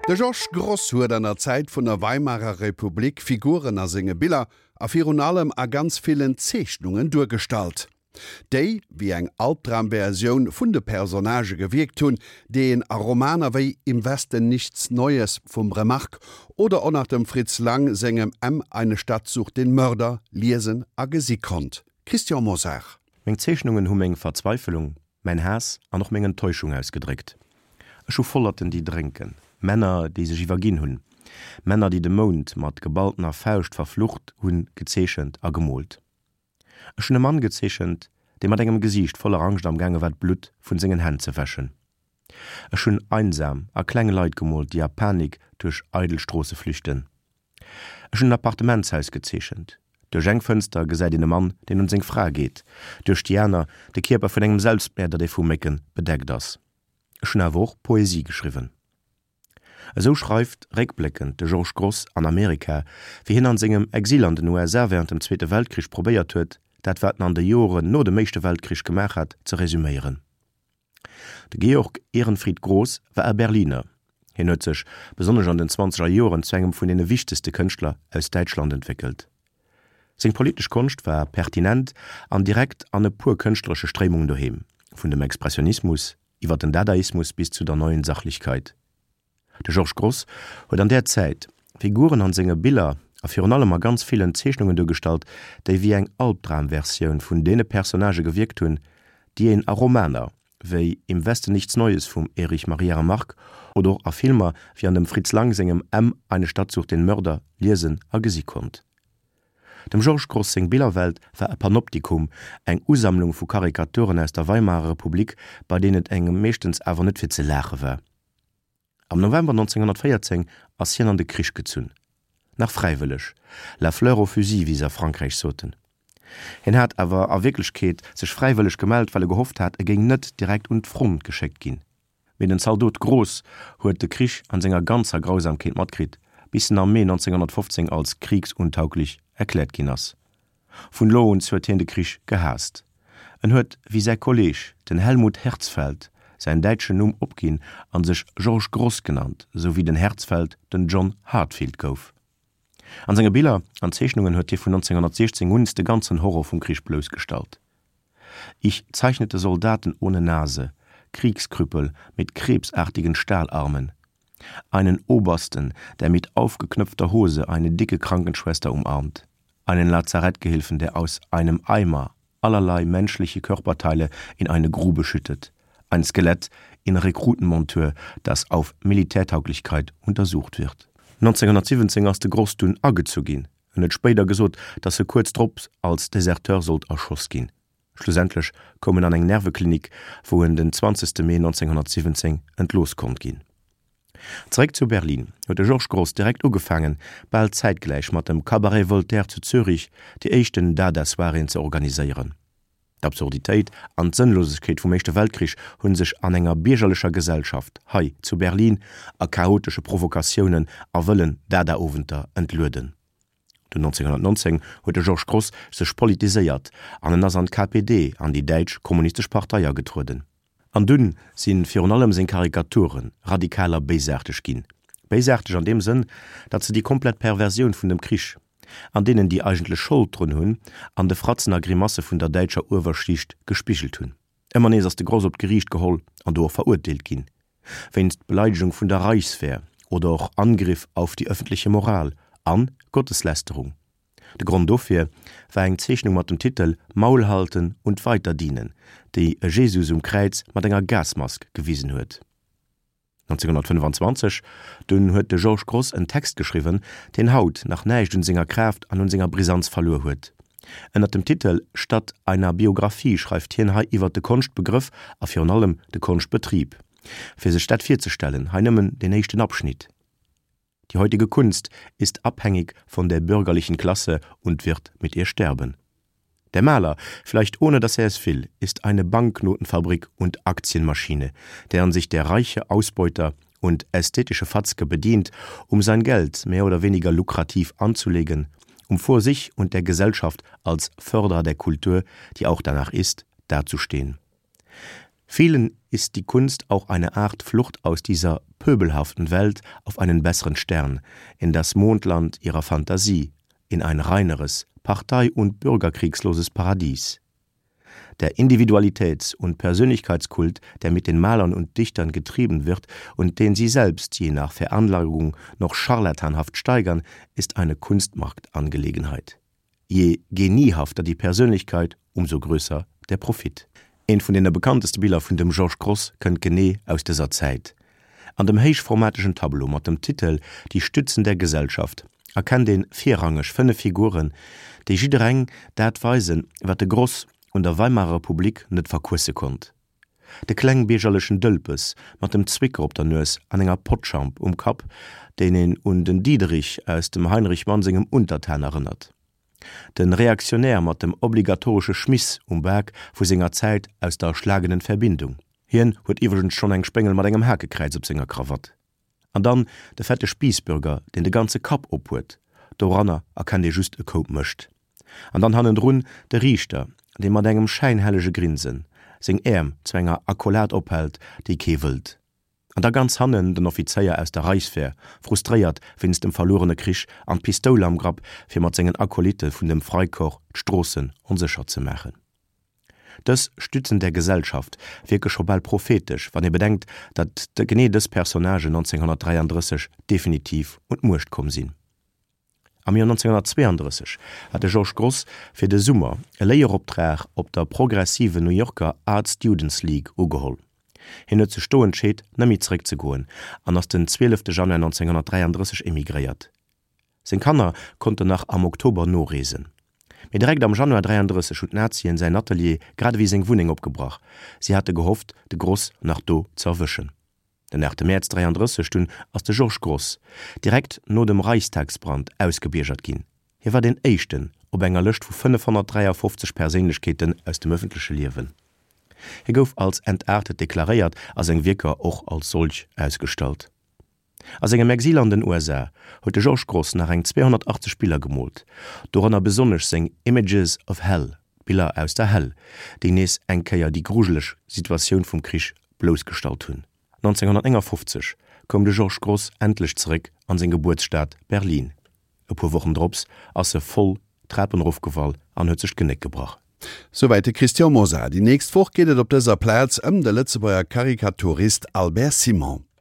De Georges Grosz huet an der Zäit vun der Weimarer Republik Figuren a senge Biller a virun allem a ganz villen Zeechnungen duergestallt, déi wéi eng Albdramversioun vun de Personnagë gewierkt hunn, déi een a Romaner wéi Im Westen nichts Neues vum Remarque oder och nach dem Fritz Lang sengem M, Eine Stadt sucht den Mörder liesen a gesi konnt. Christian Mosar. Meng Zeechnungen hu meng Verzweifelung, mäin Haass an och meng Enttäuschung ausgedréckt. Ech hu Vollerten, déi drénken, Männer, déi sech iwwerginn hunn, Männer, déi de Mound mat geballtener Fauscht verflucht hunn, gezeechent a gemoolt. Ech hunn e Mann gezeechent, dee mat engem Gesiicht voller Angscht am gaange war d'Blutt vun sengen Hänn ze wäschen. Ech hunn einsam a kleng Leit gemoolt, déi a Panik duerch eidel Stroosse flüchten. Ech hunn en Appartementshaus gezeechent. Duerch eng Fënster gesäit een e Mann, deen un seng Fra geet, duerch déi aner de Kierper vun engem Selbstmäerder, dee vu Mécken bedeckt ass. Ech hunn awer och Poesie geschriwwen. Esou schreift réckbléckend de Georges Grosz an Amerika, wéi hien an sengem Exil an den USA wärend dem Zweete Weltkrich probéiert huet, dat wat en an de Joren no dem Éischte Weltkrich gemaach hat, ze resuméieren. De Georg Ehrenfried Grosz war e Berliner. Hien huet sech, besonnesch an den zwanzeger Joren, zu engem vun deene wichtegste Kënschtler aus Däitschland entwéckelt. Seng politesch Konscht war pertinent an direkt an e puer kënschtleresche Stréimungen doheem, vun dem Expressionismus iwwer den Dadaismus bis zu der Neuen Sachlichkeit. De Georges Grosz huet an där Zäit Figuren an senge Biller a virun allem a ganz villen Zeechnungen duergestallt, déi wéi eng Albdramversioun vun deene Personnagë gewierkt hunn, déi een a Romaner wéi Im Westen nichts Neues vum Erich Maria Remarque oder och a Filmer wéi an dem Fritz Lang sengem M, Eine Stadt sucht den Mörder liesen a gesi konnt. Dem Georges Grosz seng Billerwelt war e Panoptikum, eng Usammlung vu Karikaturen aus der Weimarer Republik, bei deenen et engem meeschtens awer net fir ze laache war. Am November 1914 ass hien an de Krich gezunn. Nach fräiwëlleg, la fleur au fusil, wéi se a Frankräich soten. Hien hat awer a Wierklechkeet sech fräiwëlleg gemellt, well e gehofft hat, e géing net direkt un d'Front geschéckt ginn. Mee den Zaldot Groß huet de Krich an senger ganzer Grausamkeet matkritt, bis en am Mee 1915 als kriegsuntauglich erkläert ginn ass. Vun elo un huet hien de Krich gehaasst. En huet wéi säi Kolleeg, den Helmut Herzfeld, säin däitschen Numm opginn an sech Georges Grosz genannt, sou wéi den Herzfeld den John Heartfield gouf. An senge Biller an Zeechnungen huet hie vun 1916 un de ganzen Horror vum Krich bloussgestallt. Ich zeichnete Soldaten ohne Nase, Kriegskrüppel mit krebsartigen Stahlarmen, einen Obersten, der mit aufgeknöpfter Hose eine dicke Krankenschwester umarmt, einen Lazarettgehilfen, der aus einem Eimer allerlei menschliche Körperteile in eine Grube schüttet, ein Skelett in Rekrutenmontur, das auf Militärtauglichkeit untersucht wird. 1917 ass de Grosz dunn agezu ginn. En huet spéider gesot, datt e kuerz drop als Deserteur sollt erschoss ginn. Schlussendlech koum en an eng Nerveklinik, wou en den 20 Mee 1917 entlooss konnt ginn. Zeréck zu Berlin huet de Georges Grosz direkt ugefaangen, bal zäitgläich mat dem Cabaret Voltaire zu Zürich, déi éischten Dada-Soiréeën ze organiséieren. D'Absurditéit an d'Sënnlosegkeet vum Éischte Weltkrich hu sech an enger biergerlecher Gesellschaft, hei zu Berlin, a chaotesche Provokatiounen a wëllen Dada-Owenter entlueden. Dunn 1919 huet de Georges Grosz sech politiséiert an en ass an d'KPD, an déi däitsch kommunistesch Partei agetrueden. An dunn si virun allem seng Karikature radikal a béisaarteg ginn. Béisaarteg an deem Sënn, datt se déi komplett Perversioun vun dem Krich, an deenen déi eigentlech Schold drun hunn, an de Fratzen a Grimasse vun der däitscher Uewerschicht gespigelt hunn. Ëmmer nees ass de Grosz op d'Geriicht geholl an do och verurteelt ginn, wéinst Beleidegung vun der Reichswehr oder och Angriff auf die öffentliche Moral an Gotteslästerung. De Grond dofir war eng Zeechnung mat dem Titel Maul halten und weiter dienen, déi e Jesus um Kräiz mat enger Gasmask gewisen huet. 1925 dunn huet de Georges Grosz en Text geschriwwen, deen haut nach näischt un senger Kraaft an un senger Brisanz verluer huet. Ënnert dem Titel Statt einer Biographie schreift hien hei iwwert de Konschtbegrëff a virun allem de Konschtbetrib. Fir sech dat virzestellen, hei nëmmen deen éischten Abschnitt. Die heutige Kunst ist abhängig von der bürgerlichen Klasse und wird mit ihr sterben. Der Maler, vielleicht ohne dass er es will, ist eine Banknotenfabrik und Aktienmaschine, deren sich der reiche Ausbeuter und ästhetische Fatzke bedient, um sein Geld mehr oder weniger lukrativ anzulegen, um vor sich und der Gesellschaft als Förderer der Kultur, die auch danach ist, dazustehen. Vielen ist die Kunst auch eine Art Flucht aus dieser pöbelhaften Welt auf einen besseren Stern, in das Mondland ihrer Fantasie, in ein reineres, partei- und bürgerkriegsloses Paradies. Der Individualitäts- und Persönlichkeitskult, der mit den Malern und Dichtern getrieben wird und den sie selbst je nach Veranlagung noch scharlatanhaft steigern, ist eine Kunstmarktangelegenheit. Je geniehafter die Persönlichkeit, umso größer der Profit. Eent vun deene bekannteste Biller vun dem Georges Grosz kënnt genee aus dëser Zäit. An dem héichformategen Tableau mat dem Titel Die Stützen der Gesellschaft erkennt een virrangeg 5 Figuren, déi jiddereng dat weisen, wat de Grosz un der Weimarer Republik net verquësse konnt. De klengbiergerlechen Dëlpes mat dem Zwicker op der Nues an enger Potschamp um Kapp, deen een un den Diederich aus dem Heinrich Mann sengem Untertan erënnert. Den Reaktionär mat dem obligatoresche Schmiss um Bak vu senger Zäit aus der erschlagenen Verbindung. Hien huet iwwregens schonn eng Spéngel mat engem Hakekräiz op senger Krawatt. An dann de fette Spiissbürger, deen de ganze Kapp op huet, doranner erkennt ee just e Koup Mëscht. An dann hannendrun de Riichter, dee mat engem schäinhellege Grinsen seng Äerm zu enger Accolade ophält, déi kee wëllt. An da ganz hannen den Offizéier aus der Reichswehr, frustréiert wéinst dem verluerene Krich an d'Pistoul am Grapp, fir mat sengen Acolytte vun dem Freikorps d'Stroossen onsécher ze maachen. Dës Stützen der Gesellschaft wierke scho bal prophetesch, wann ee bedenkt, datt genee dës Personnagen 1933 definitiv un d'Muecht komm sinn. Am Joer 1932 hat de Georges Grosz fir de Summer e Léieroptrag op der progressiven New Yorker Art Students League ugeholl. Hien huet sech do entscheet, net méi zeréckzegoen an ass den 12 Januar 1933 emigréiert. Seng Kanner konnten nach am Oktober noreesen. Mee direkt am Januar 33 hunn d'Nazien säin Atelier grad ewéi seng Wunneng opgebrach. Si hate gehofft, de Grosz nach do ze erwëschen. Den 8 Mäerz 33 dunn ass de Georges Grosz, direkt no dem Reichstagsbrand, ausgebiergert ginn. Hie war deen éischten op enger Lëscht vu 553 Perséinlechkeeten aus dem ëffentleche Liewen. Hie gouf als entartet deklaréiert a seng Wierker och als solch ausgestallt. A sengem Exil an den USA huet de Georges Grosz nach eng 280 Biller gemoolt, dorënner besonnesch seng Images of Hell, Biller aus der Hell, déi nees eng Kéier déi grujeleg Situatioun vum Krich bloussgestallt hunn. 1959 koum de Georges Grosz endlech zeréck an seng Gebuertsstad Berlin. E puer Wochen drops ass e voll d'Trapen erofgefall an huet sech d'Genéck gebrach. Souwäit de Christian Mosar. Déi nächst Woch geet et op dëser Plaz ëm de Lëtzebuerger Karikaturist Albert Simon.